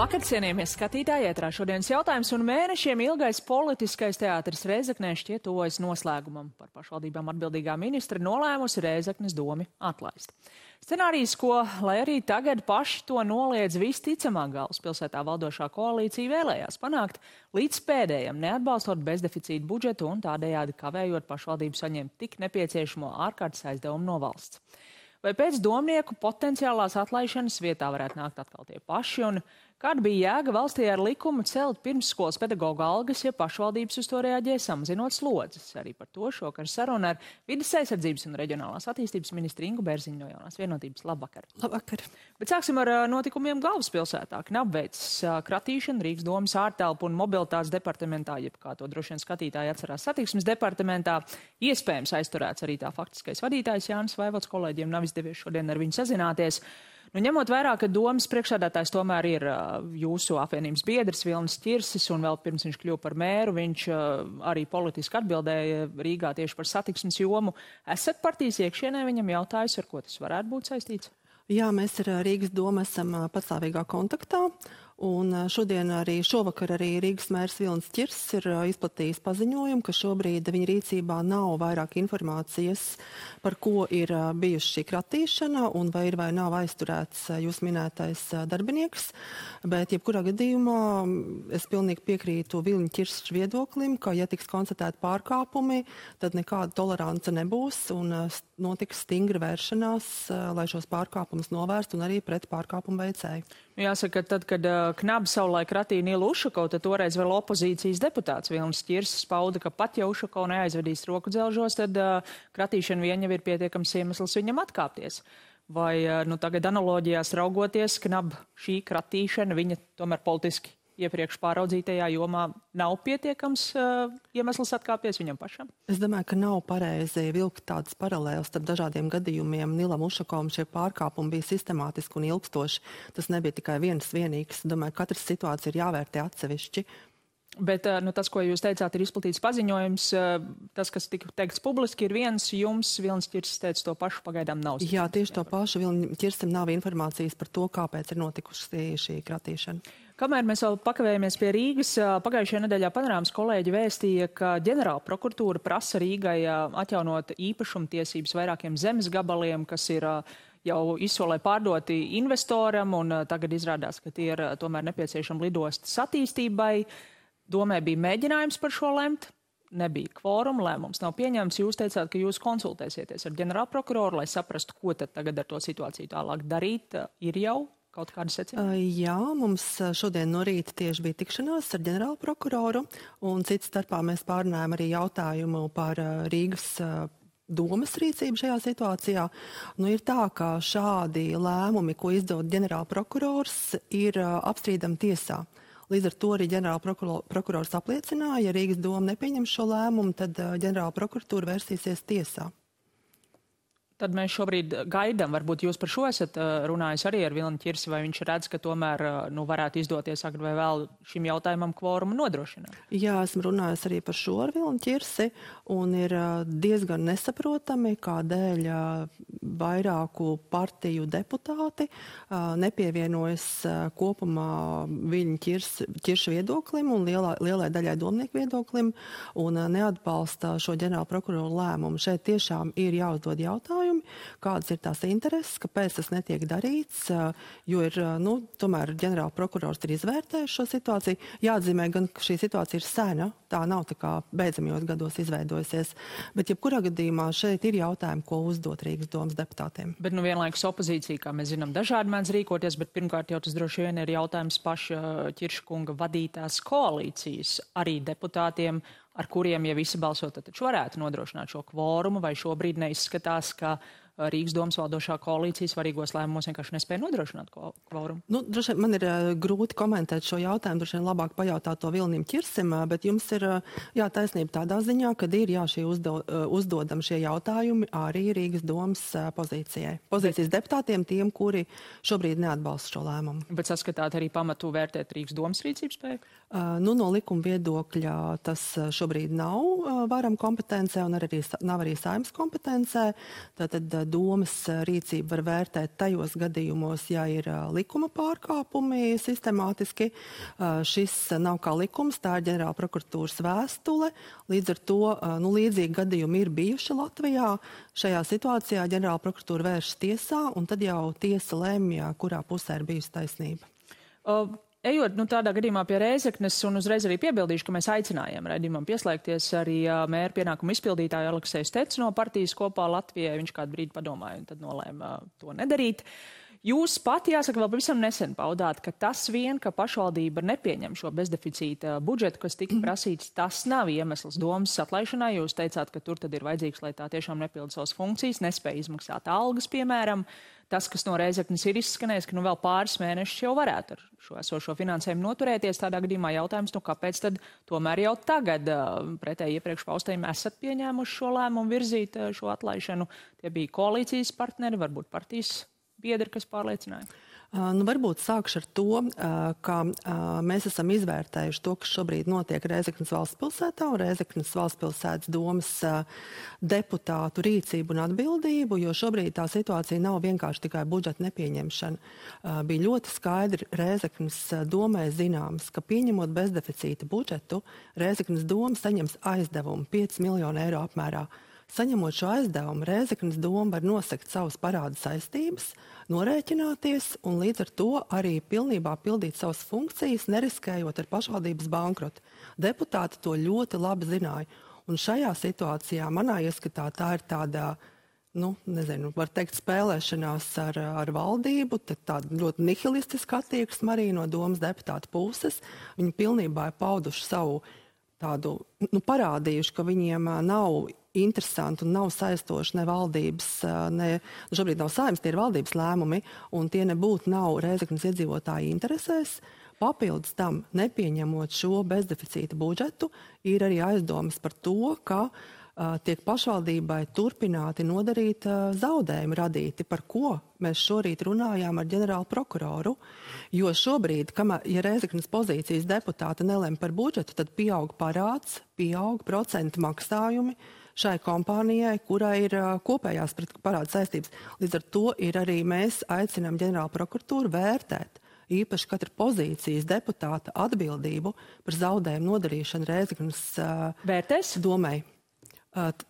Labvakar, cienījamie skatītāji, ētrā šodienas jautājums un mēnešiem ilgais politiskais teātris Rēzeknē šķiet tuvojas noslēgumam. Par pašvaldībām atbildīgā ministra nolēmusi Rēzeknes domi atlaist. Scenārijs, ko, lai arī tagad paši to noliedz, visticamāk galvaspilsētā valdošā koalīcija vēlējās panākt līdz pēdējam, neatbalstot bezdeficīta budžetu un tādējādi kavējot pašvaldību saņemt tik nepieciešamo ārkārtas aizdevumu no valsts. Vai pēc domnieku potenciālās atlaišanas vietā varētu nākt atkal tie paši, un kāda bija jēga valstī ar likumu celt pirmsskolas pedagoģa algas, ja pašvaldības uz to reaģē samazinot slodzes? Arī par to šokar saruna ar Vides aizsardzības un reģionālās attīstības ministru Ingu Bērziņu no Jaunās Vienotības. Labvakar! Labvakar! Bet sāksim ar notikumiem galvaspilsētā. Knapveicis kratīšana Rīgas domas ārtelpu un mobilitātes departamentā, jeb kā to droši vien skatītāji atcerās satiksmes departamentā. Iespējams aizturēts arī tā faktiskais vadītājs Jānis Vaivots. Kolēģiem nav izdevies šodien ar viņu sazināties. Nu, ņemot vērā, ka domas priekšsēdētājs tomēr ir jūsu apvienības biedrs Vilnis Ķirsis, un vēl pirms viņš kļuva par mēru, viņš arī politiski atbildēja Rīgā tieši par satiksmes jomu. Esat partijas iekšienē viņam jautājusi, ar ko tas varētu būt saistīts? Jā, mēs ar Rīgas domu esam patstāvīgā kontaktā. Un šovakar arī Rīgas mērs Vilnis Ķirsis ir izplatījis paziņojumu, ka šobrīd viņa rīcībā nav vairāk informācijas, par ko ir bijusi šī kratīšana un vai ir vai nav aizturēts jūs minētais darbinieks. Bet jebkurā gadījumā es pilnīgi piekrītu Vilņa Ķirsis viedoklim, ka ja tiks konstatēti pārkāpumi, tad nekāda tolerance nebūs un notiks stingra vēršanās, lai šos pārkāpumus novērstu un arī pret pārkāpumu veicēju. Jāsaka, tad, kad Knabs savulaik ratīja Nilu Ušakovu, tad toreiz vēl opozīcijas deputāts Vilnis Ķirsis pauda, ka pat ja Ušakovu neaizvedīs roku dzelžos, tad kratīšana vien jau ir pietiekams iemesls viņam atkāpties. Vai tagad analoģijās raugoties, Knaba šī kratīšana viņa tomēr politiski iepriekš pāraudzītajā jomā nav pietiekams iemesls atkāpties viņam pašam? Es domāju, ka nav pareizi vilkt tādas paralēlas starp dažādiem gadījumiem. Nilam Ušakovam šie pārkāpumi bija sistemātiski un ilgstoši. Tas nebija tikai viens vienīgs. Domāju, ka katras situācija ir jāvērtē atsevišķi. Bet tas, ko jūs teicāt, ir izplatīts paziņojums. Tas, kas tika teikts publiski, ir viens. Jums Vilnis Ķirsis teica to pašu, pagaidām nav. Jā, tieši to pašu. Vilnim Ķirsim nav informācijas par to, kāpēc ir notikusi šī kratīšana. Kamēr mēs vēl pakavējamies pie Rīgas, pagājušajā nedēļā Panorāmas kolēģi vēstīja, ka ģenerāla prokuratūra prasa Rīgai atjaunot īpašumtiesības vairākiem zemes gabaliem, kas ir jau izsolē pārdoti investoram, un tagad izrādās, ka tie ir tomēr nepieciešami lidostas attīstībai. Domē bija mēģinājums par šo lemt, nebija kvoruma, lēmums nav pieņemts. Jūs teicāt, ka jūs konsultēsieties ar ģenerālprokuroru, lai saprastu, ko tad tagad ar to situāciju tālāk darīt. Ir jau kaut kāda secinājuma? Jā, mums šodien no rīta tieši bija tikšanās ar ģenerālprokuroru, un cits starpā mēs pārunājam arī jautājumu par Rīgas domas rīcību šajā situācijā. Nu, ir tā, ka šādi lēmumi, ko izdod ģenerālprokurors, ir apstrīdami tiesā. Līdz ar to arī ģenerālprokurors apliecināja, ja Rīgas doma nepieņem šo lēmumu, tad ģenerālprokuratūra vērsīsies tiesā. Tad mēs šobrīd gaidām, varbūt jūs par šo esat runājis arī ar Vilni Ķirsi, vai viņš redz, ka tomēr varētu izdoties agri vai vēl šim jautājumam kvorumu nodrošināt? Jā, esmu runājis arī par šo ar Vilni Ķirsi, un ir diezgan nesaprotami, kādēļ vairāku partiju deputāti nepievienojas kopumā Vilņa Ķirša viedoklim un lielai daļai domnieku viedoklim un neatbalsta šo ģenerālprokuroru lēmumu. Šeit tiešām ir jāuzdod jautājumi, kādas ir tās intereses, kāpēc tas netiek darīts, jo ir, tomēr ģenerālprokurors ir izvērtējis šo situāciju. Jāatzīmē gan, ka šī situācija ir sena, tā nav tā kā beidzamajos gados izveidojusies, bet jebkurā gadījumā šeit ir jautājumi, ko uzdot Rīgas domas deputātiem. Bet vienlaikus opozīcija, kā mēs zinām, dažādi mēdz rīkoties, bet pirmkārt jau tas droši vien ir jautājums paša Ķirša kunga vadītās koalīcijas arī deputātiem, ar kuriem, ja visi balsot, tad taču varētu nodrošināt šo kvorumu, vai šobrīd neizskatās, ka Rīgas domas valdošā koalīcija svarīgos lēmumos vienkārši nespēja nodrošināt kvorumu? Droši vien man ir grūti komentēt šo jautājumu, droši vien labāk pajautāt to Vilnim Ķirsim, bet jums ir taisnība tādā ziņā, ka ir šie uzdodam šie jautājumi arī Rīgas domas pozīcijas deputātiem, tiem, kuri šobrīd neatbalsta šo lēmumu. Bet saskatāt arī pamatu vērtēt Rīgas domas rīcības spēju? No likuma viedokļa tas šobrīd nav varam kompetencē un nav arī Saeimas kompetencē. Tātad domas rīcību var vērtēt tajos gadījumos, ja ir likuma pārkāpumi sistemātiski. Šis nav kā likums, tā ir ģenerāla prokuratūras vēstule. Līdz ar to līdzīgi gadījumi ir bijuši Latvijā. Šajā situācijā ģenerāla prokuratūra vēršas tiesā, un tad jau tiesa lemj, kurā pusē ir bijusi taisnība. Ejot tādā gadījumā pie Rēzeknes, un uzreiz arī piebildīšu, ka mēs aicinājām raidījumam pieslēgties arī mēra pienākumu izpildītāju Aleksēju Steci no partijas Kopā Latvijai. Viņš kādu brīdi padomāja un tad nolēma to nedarīt. Jūs pati, jāsaka, vēl pavisam nesen paudāt, ka tas vien, ka pašvaldība nepieņem šo bezdeficīta budžetu, kas tika prasīts, tas nav iemesls domas atlaišanai. Jūs teicāt, ka tur tad ir vajadzīgs, lai tā tiešām nepilda savas funkcijas, nespēja izmaksāt algas, piemēram. Tas, kas no Rēzeknes ir izskanējis, ka vēl pāris mēnešus jau varētu ar šo esošo finansējumu noturēties. Tādā gadījumā jautājums, kāpēc tad tomēr jau tagad pretēji iepriekš paustajiem esat pieņēmuši šo lēmumu virzīt šo atlaišanu? Tie bija koalīcijas partneri, varbūt partijas biedri, kas pārliecināja? Varbūt sākšu ar to, ka mēs esam izvērtējuši to, kas šobrīd notiek Rēzeknes valstspilsētā un Rēzeknes valstspilsētas domas deputātu rīcību un atbildību, jo šobrīd tā situācija nav vienkārši tikai budžeta nepieņemšana. Bija ļoti skaidri Rēzeknes domai zināms, ka pieņemot bezdeficīta budžetu, Rēzeknes doma saņems aizdevumu 5 miljonu eiro apmērā. Saņemot šo aizdevumu, Rēzeknes doma var nosegt savas parāda saistības, norēķināties un līdz ar to arī pilnībā pildīt savas funkcijas, neriskējot ar pašvaldības bankrotu. Deputāti to ļoti labi zināja. Un šajā situācijā manā ieskatā tā ir tāda, var teikt, spēlēšanās ar valdību, tāda ļoti nihilistiska attieksme arī no domas deputāta puses. Viņi pilnībā ir pauduši savu tādu, parādījuši, ka viņiem nav interesanti un nav saistoši ne valdības, šobrīd nav Saeimas, tie ir valdības lēmumi, un tie nebūtu nav Rēzeknes iedzīvotāju interesēs. Papildus tam, nepieņemot šo bezdeficīta budžetu, ir arī aizdomas par to, ka tiek pašvaldībai turpināti nodarīt zaudējumi radīti, par ko mēs šorīt runājām ar ģenerālu prokuroru, jo šobrīd, ja Rēzeknes pozīcijas deputāti nelem par budžetu, tad pieaug parāds, pieaug procentu maksājumi šai kompānijai, kurai ir kopējās parāda saistības. Līdz ar to ir arī mēs aicinām ģenerālu prokuratūru vērtēt īpaši katra pozīcijas deputāta atbildību par zaudējumu nodarīšanu Rēzeknes domai.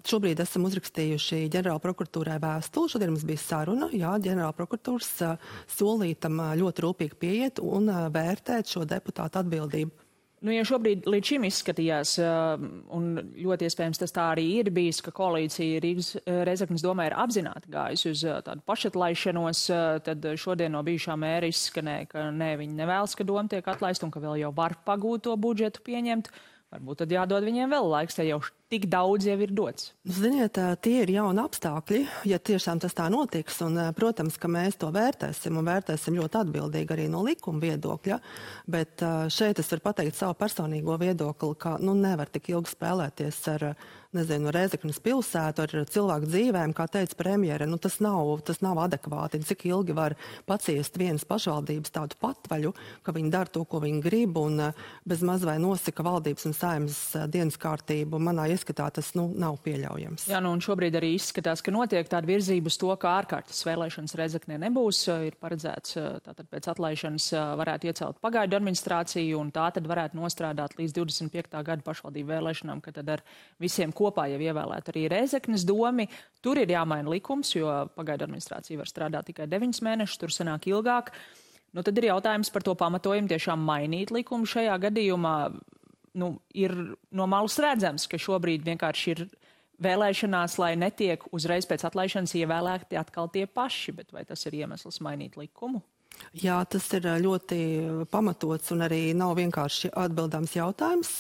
Šobrīd esam uzrakstījuši ģenerāla prokuratūrai vēstuli. Šodien mums bija saruna, ģenerāla prokuratūras solītam ļoti rūpīgi pieiet un vērtēt šo deputātu atbildību. Ja šobrīd līdz šim izskatījās, un ļoti iespējams tas tā arī ir bijis, ka koalīcija Rēzeknes domē ir apzināti gājusi uz tādu pašatlaišanos, tad šodien no bijušā mēra izskanēja, ka viņi nevēlas, ka doma tiek atlaista un ka vēl jau var pagūt to budžetu pieņemt. Varbūt tad jādod viņiem vēl laiks, ja jau tik daudz jau ir dots. Ziniet, tie ir jauni apstākļi, ja tiešām tas tā notiks, un, protams, ka mēs to vērtēsim un vērtēsim ļoti atbildīgi arī no likuma viedokļa, bet šeit es varu pateikt savu personīgo viedokli, ka nevar tik ilgi spēlēties ar Rēzeknes pilsētu, ar cilvēku dzīvēm, kā teica premjere, tas nav adekvāti. Cik ilgi var paciest vienas pašvaldības tādu patvaļu, ka viņi dara to, ko viņi grib, un bez maz vai nosaka valdības un Saeimas dienas kārtību. Manā ieskatā tas nav pieļaujams. Jā, un šobrīd arī izskatās, ka notiek tāda virzība uz to, ka ārkārtas vēlēšanas Rēzeknē nebūs. Ir paredzēts, tātad pēc atlaišanas varētu iecelt pagaidu administrāciju, un tā tad varētu nostrādāt līdz 25. gada pašvaldību vēlēšanām, ka tad ar visiem kopā jau ievēlēt arī Rēzeknes domi. Tur ir jāmaina likums, jo pagaidu administrācija var strādāt tikai 9 mēnešus, tur sanāk ilgāk. Tad ir jautājums par to pamatojumu tiešām mainīt likumu šajā gadījumā. Ir no malas redzams, ka šobrīd vienkārši ir vēlēšanās, lai netiek uzreiz pēc atlaišanas ievēlēti atkal tie paši, bet vai tas ir iemesls mainīt likumu? Jā, tas ir ļoti pamatots un arī nav vienkārši atbildāms jautājums.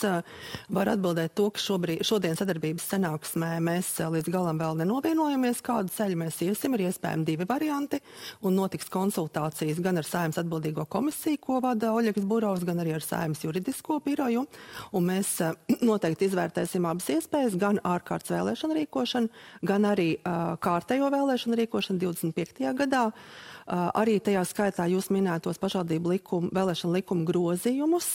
Var atbildēt to, ka šodien sadarbības sanāksmē mēs līdz galam vēl nenovienojamies, kādu ceļu mēs iesim. Ir iespējami 2 varianti un notiks konsultācijas gan ar Saeimas atbildīgo komisiju, ko vada Oļegs Burovs, gan arī ar Saeimas juridisko biroju. Un mēs noteikti izvērtēsim abas iespējas, gan ārkārtas vēlēšanu rīkošanu, gan arī kārtējo vēlēšanu rīkošanu 25. gadā. Arī tajā skaitā jūs jūs minētos pašvaldību vēlēšanu likuma grozījumus,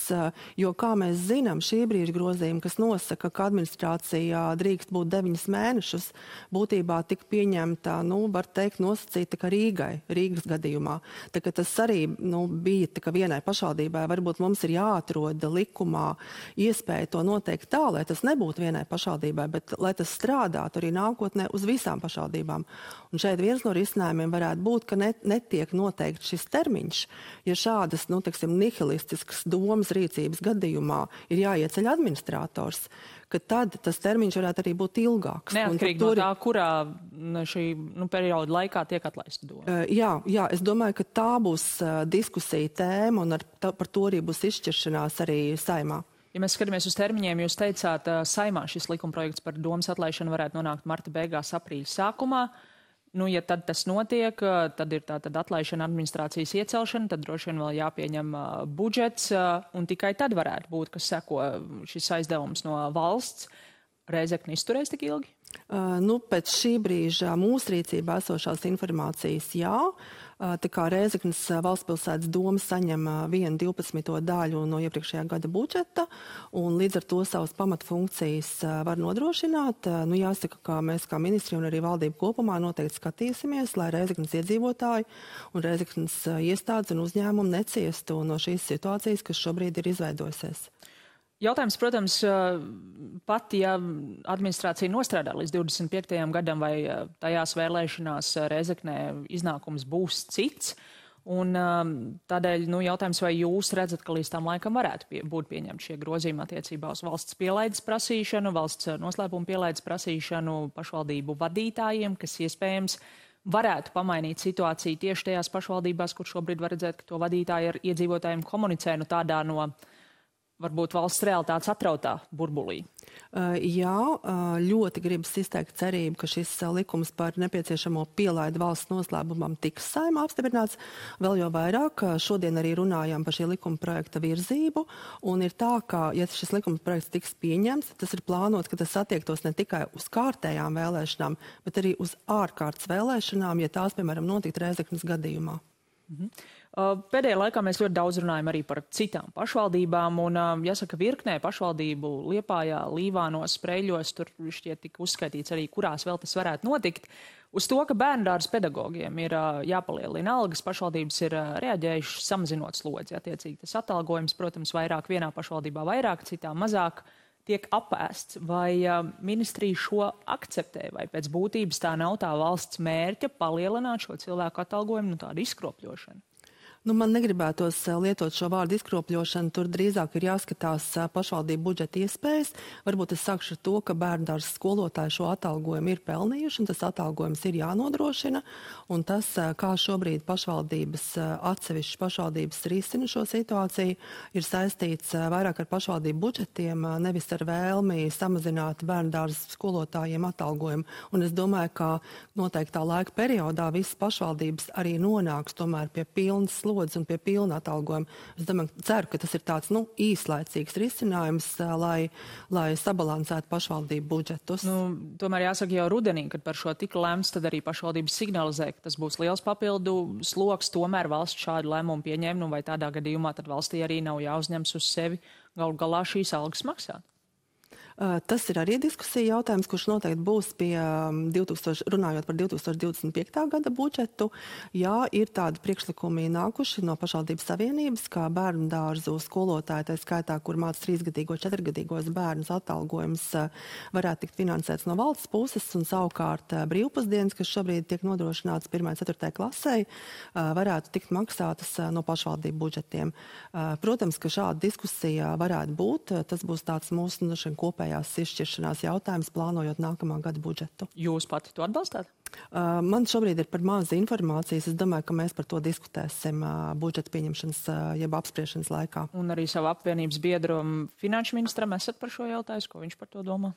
jo, kā mēs zinām, šī brīža grozījumi, kas nosaka, ka administrācijā drīkst būt 9 mēnešus, būtībā tika pieņemta, var teikt, nosacīta, ka Rīgas gadījumā. Tā kā tas arī bija tā, ka vienai pašvaldībai varbūt mums ir jāatrod likumā iespēja to noteikt tā, lai tas nebūtu vienai pašvaldībai, bet lai tas strādātu arī nākotnē uz visām pašvaldībām. Un šeit viens no risinājumiem varētu būt, ka netiek noteikti šis termiņš, ja šādas, nihilistiskas domas rīcības gadījumā ir jāieceļ administrators, ka tad tas termiņš varētu arī būt ilgāks. Neatkarīgi no tā, kurā šī perioda laikā tiek atlaista doma. Jā, es domāju, ka tā būs diskusija tēma un par to arī būs izšķiršanās arī Saeimā. Ja mēs skatāmies uz termiņiem, jūs teicāt, Saeimā šis likumprojekts par domas atlaišanu varētu nonākt marta beigās, aprīļa sākumā. Ja tad tas notiek, tad ir tātad atlaišana, administrācijas iecelšana, tad droši vien vēl jāpieņem budžets, un tikai tad varētu būt, kas seko šis aizdevums no valsts. Rēzekne izturēs tik ilgi? Pēc šī brīža mūsu rīcībā esošās informācijas jā. Tā kā Rēzeknes valstspilsētas doma saņem 1/12 daļu no iepriekšējā gada budžeta, un līdz ar to savas pamatfunkcijas var nodrošināt. Jāsaka, ka mēs kā ministri un arī valdība kopumā noteikti skatīsimies, lai Rēzeknes iedzīvotāji un Rēzeknes iestādes un uzņēmumi neciestu no šīs situācijas, kas šobrīd ir izveidojusies. Jautājums, protams, pat ja administrācija nostrādā līdz 25. gadam vai tajās vēlēšanās Rēzeknē iznākums būs cits, un tādēļ jautājums, vai jūs redzat, ka līdz tam laikam varētu būt pieņemti šie grozījumi attiecībā uz valsts pielaides prasīšanu, valsts noslēpuma pielaides prasīšanu pašvaldību vadītājiem, kas iespējams varētu pamainīt situāciju tieši tajās pašvaldībās, kur šobrīd var redzēt, ka to vadītāji ar iedzīvotājiem komunicē tādā no varbūt valsts realitātes atrautā burbulī. Jā, ļoti gribas izteikt cerību, ka šis likums par nepieciešamo pielaidu valsts noslēpumam tiks Saeimā apstiprināts. Vēl jau vairāk, šodien arī runājām par šī likuma projekta virzību, un ir tā, ka, ja šis likuma projekts tiks pieņemts, tas ir plānots, ka tas attiektos ne tikai uz kārtējām vēlēšanām, bet arī uz ārkārtas vēlēšanām, ja tās, piemēram, notikt Rēzeknes gadījumā. Pēdējā laikā mēs ļoti daudz runājam arī par citām pašvaldībām, un jāsaka, virknē pašvaldību Liepājā, Līvānos, Sprēļos, tur šķiet tika uzskaitīts arī, kurās vēl tas varētu notikt. Uz to, ka bērndārza pedagogiem ir jāpalielina algas, pašvaldības ir reaģējušas samazinot slodzi. Attiecīgi tas atalgojums, protams, vairāk vienā pašvaldībā vairāk, citā mazāk tiek apēsts. Vai ministrija šo akceptē, vai pēc būtības tā nav tā valsts mērķa palielināt šo cilvēku atalgojumu, tādu izkropļošanu? Man negribētos lietot šo vārdu izkropļošanu, tur drīzāk ir jāskatās pašvaldību budžeta iespējas. Varbūt es sākšu ar to, ka bērndārzas skolotāji šo atalgojumu ir pelnījuši, un tas atalgojums ir jānodrošina, un tas, kā šobrīd atsevišķas pašvaldības risina šo situāciju, ir saistīts vairāk ar pašvaldību budžetiem, nevis ar vēlmi samazināt bērndārzas skolotājiem atalgojumu. Un es domāju, ka noteiktā laika periodā visas pašvaldības arī nonāks tomēr pie pilnas un pie pilna atalgojuma. Es ceru, ka tas ir tāds īslaicīgs risinājums, lai sabalansētu pašvaldību budžetus. Tomēr jāsaka jau rudenī, kad par šo tika lemts, tad arī pašvaldības signalizē, ka tas būs liels papildu sloks. Tomēr valsts šādu lēmumu pieņēma, vai tādā gadījumā tad valstī arī nav jāuzņems uz sevi galu galā šīs algas maksāt. Tas ir arī diskusija jautājums, kurš noteikti būs runājot par 2025. gada budžetu. Jā, ir tādi priekšlikumi nākuši no pašvaldības savienības, kā bērnu dārzu skolotāji, tā skaitā, kur māca 3-gadīgo, 4-gadīgos bērnus, atalgojums varētu tikt finansēts no valsts puses, un savukārt brīvpusdienas, kas šobrīd tiek nodrošināts 1.–4. klasē, varētu tikt maksātas no pašvaldību budžetiem. Protams, ka šāda diskusija varētu būt. Tas būs tāds mūsu kopējais izšķiršanās jautājums, plānojot nākamā gada budžetu. Jūs pati to atbalstāt? Man šobrīd ir par maz informācijas. Es domāju, ka mēs par to diskutēsim budžeta pieņemšanas jeb apspriešanas laikā. Un arī savu apvienības biedru finanšu ministram esat par šo jautājumu, ko viņš par to domā?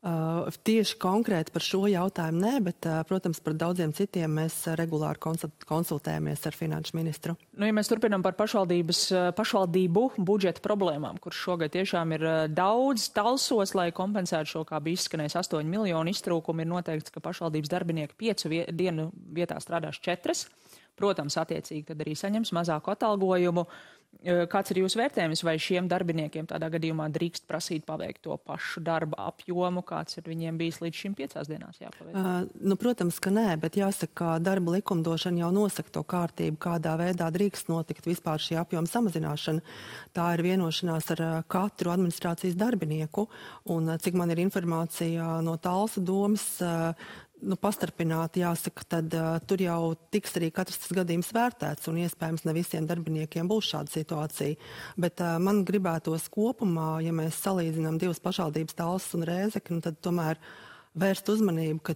Tieši konkrēti par šo jautājumu nē, bet, protams, par daudziem citiem mēs regulāri konsultējamies ar finanšu ministru. Ja mēs turpinām par pašvaldību budžeta problēmām, kur šogad tiešām ir daudz talsos, lai kompensētu šo, kā bija izskanējis, 8 miljonu iztrūkumu, ir noteikts, ka pašvaldības darbinieki 5 dienu vietā strādās 4. protams, attiecīgi tad arī saņems mazāku atalgojumu. Kāds ir jūsu vērtējums, vai šiem darbiniekiem tādā gadījumā drīkst prasīt paveikt to pašu darba apjomu, kāds ir viņiem bijis līdz šim 5 dienās jāpaveic? Protams, ka nē, bet jāsaka, ka darba likumdošana jau nosaka to kārtību, kādā veidā drīkst notikt vispār šī apjoma samazināšana. Tā ir vienošanās ar katru administrācijas darbinieku, un cik man ir informācija no Talsu domas, pastarpināti jāsaka, tad tur jau tiks arī katrs tas gadījums vērtēts, un iespējams ne visiem darbiniekiem būs šāda situācija. Bet man gribētos kopumā, ja mēs salīdzinām divas pašvaldības, Talsu un Rēzekni, tad tomēr vērst uzmanību, ka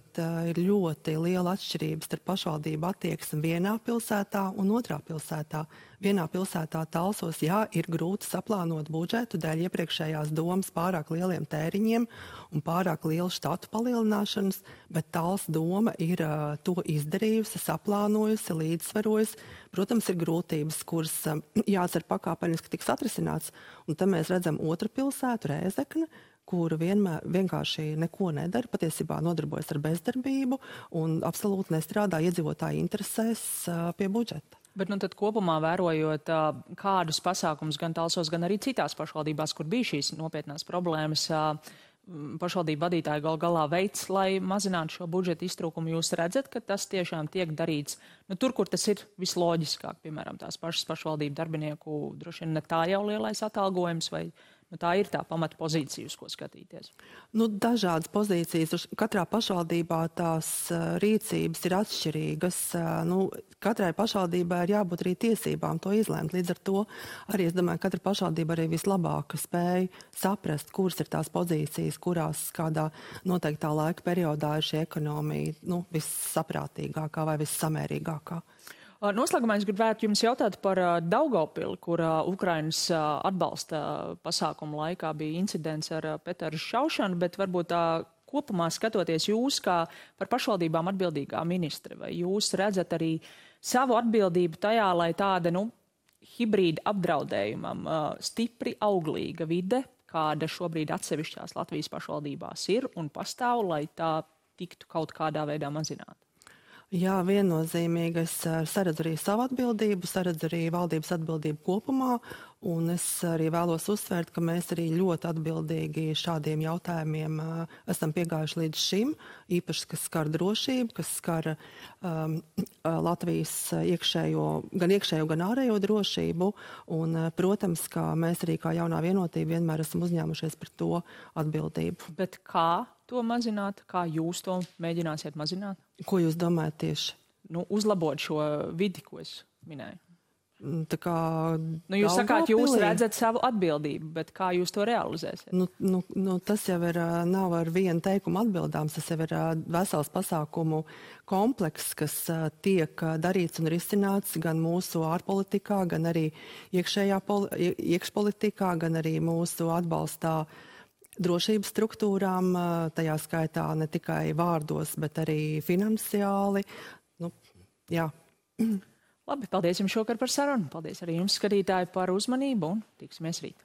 ir ļoti liela atšķirība starp pašvaldību attieksmi vienā pilsētā un otrā pilsētā. Vienā pilsētā Talsos, ir grūti saplānot budžetu dēļ iepriekšējās domas pārāk lieliem tēriņiem un pārāk lielu štatu palielināšanas, bet Talsu doma ir to izdarījusi, saplānojusi, līdzsvarojusi. Protams, ir grūtības, kuras jācer pakāpeniski tiks atrisināts. Un te mēs redzam otru pilsētu, Rēzekni, kura vienkārši neko nedara, patiesībā nodarbojas ar bezdarbību un absolūti nestrādā iedzīvotāju interesēs pie budžeta. Bet tad kopumā vērojot, kādus pasākumus gan Talsos, gan arī citās pašvaldībās, kur bija šīs nopietnās problēmas, pašvaldību vadītāji galā veids, lai mazinātu šo budžeta iztrūkumu, jūs redzat, ka tas tiešām tiek darīts tur, kur tas ir visloģiskāk, piemēram, tās pašas pašvaldību darbinieku droši vien ne tā jau lielais atalgojums, vai tā ir tā pamata pozīcija, uz ko skatīties? Dažādas pozīcijas. Katrā pašvaldībā tās rīcības ir atšķirīgas. Katrai pašvaldībai ir jābūt arī tiesībām to izlēmt. Līdz ar to arī, es domāju, katra pašvaldība arī vislabāk spēj saprast, kuras ir tās pozīcijas, kurās kādā noteiktā laika periodā ir šī ekonomija vissaprātīgākā vai vissamērīgākā. Noslēgumā es gribētu jums jautāt par Daugavpili, kur Ukrainas atbalsta pasākumu laikā bija incidents ar Peteru šaušanu, bet varbūt kopumā skatoties jūs kā par pašvaldībām atbildīgā ministre, vai jūs redzat arī savu atbildību tajā, lai tāda, hibrīda apdraudējumam stipri auglīga vide, kāda šobrīd atsevišķās Latvijas pašvaldībās ir un pastāv, lai tā tiktu kaut kādā veidā mazināta? Jā, viennozīmīgi es saredzu arī savu atbildību, saredzu arī valdības atbildību kopumā, un es arī vēlos uzsvērt, ka mēs arī ļoti atbildīgi šādiem jautājumiem esam piegājuši līdz šim, īpaši, kas skar drošību, kas skar Latvijas gan iekšējo, gan ārējo drošību, un, protams, ka mēs arī kā jaunā vienotība vienmēr esam uzņēmušies par to atbildību. Bet kā to mazināt? Kā jūs to mēģināsiet mazināt? Ko jūs domājat tieši? Uzlabot šo vidi, ko es minēju. Jūs sakāt, jūs redzat savu atbildību, bet kā jūs to realizēsiet? Tas jau nav ar vienu teikumu atbildāms, tas jau ir vesels pasākumu komplekss, kas tiek darīts un risināts gan mūsu ārpolitikā, gan arī iekšpolitikā, gan arī mūsu atbalstā drošības struktūrām, tajā skaitā ne tikai vārdos, bet arī finansiāli. Jā. Labi, paldies jums šokar par sarunu. Paldies arī jums, skatītāji, par uzmanību un tiksimies rīt.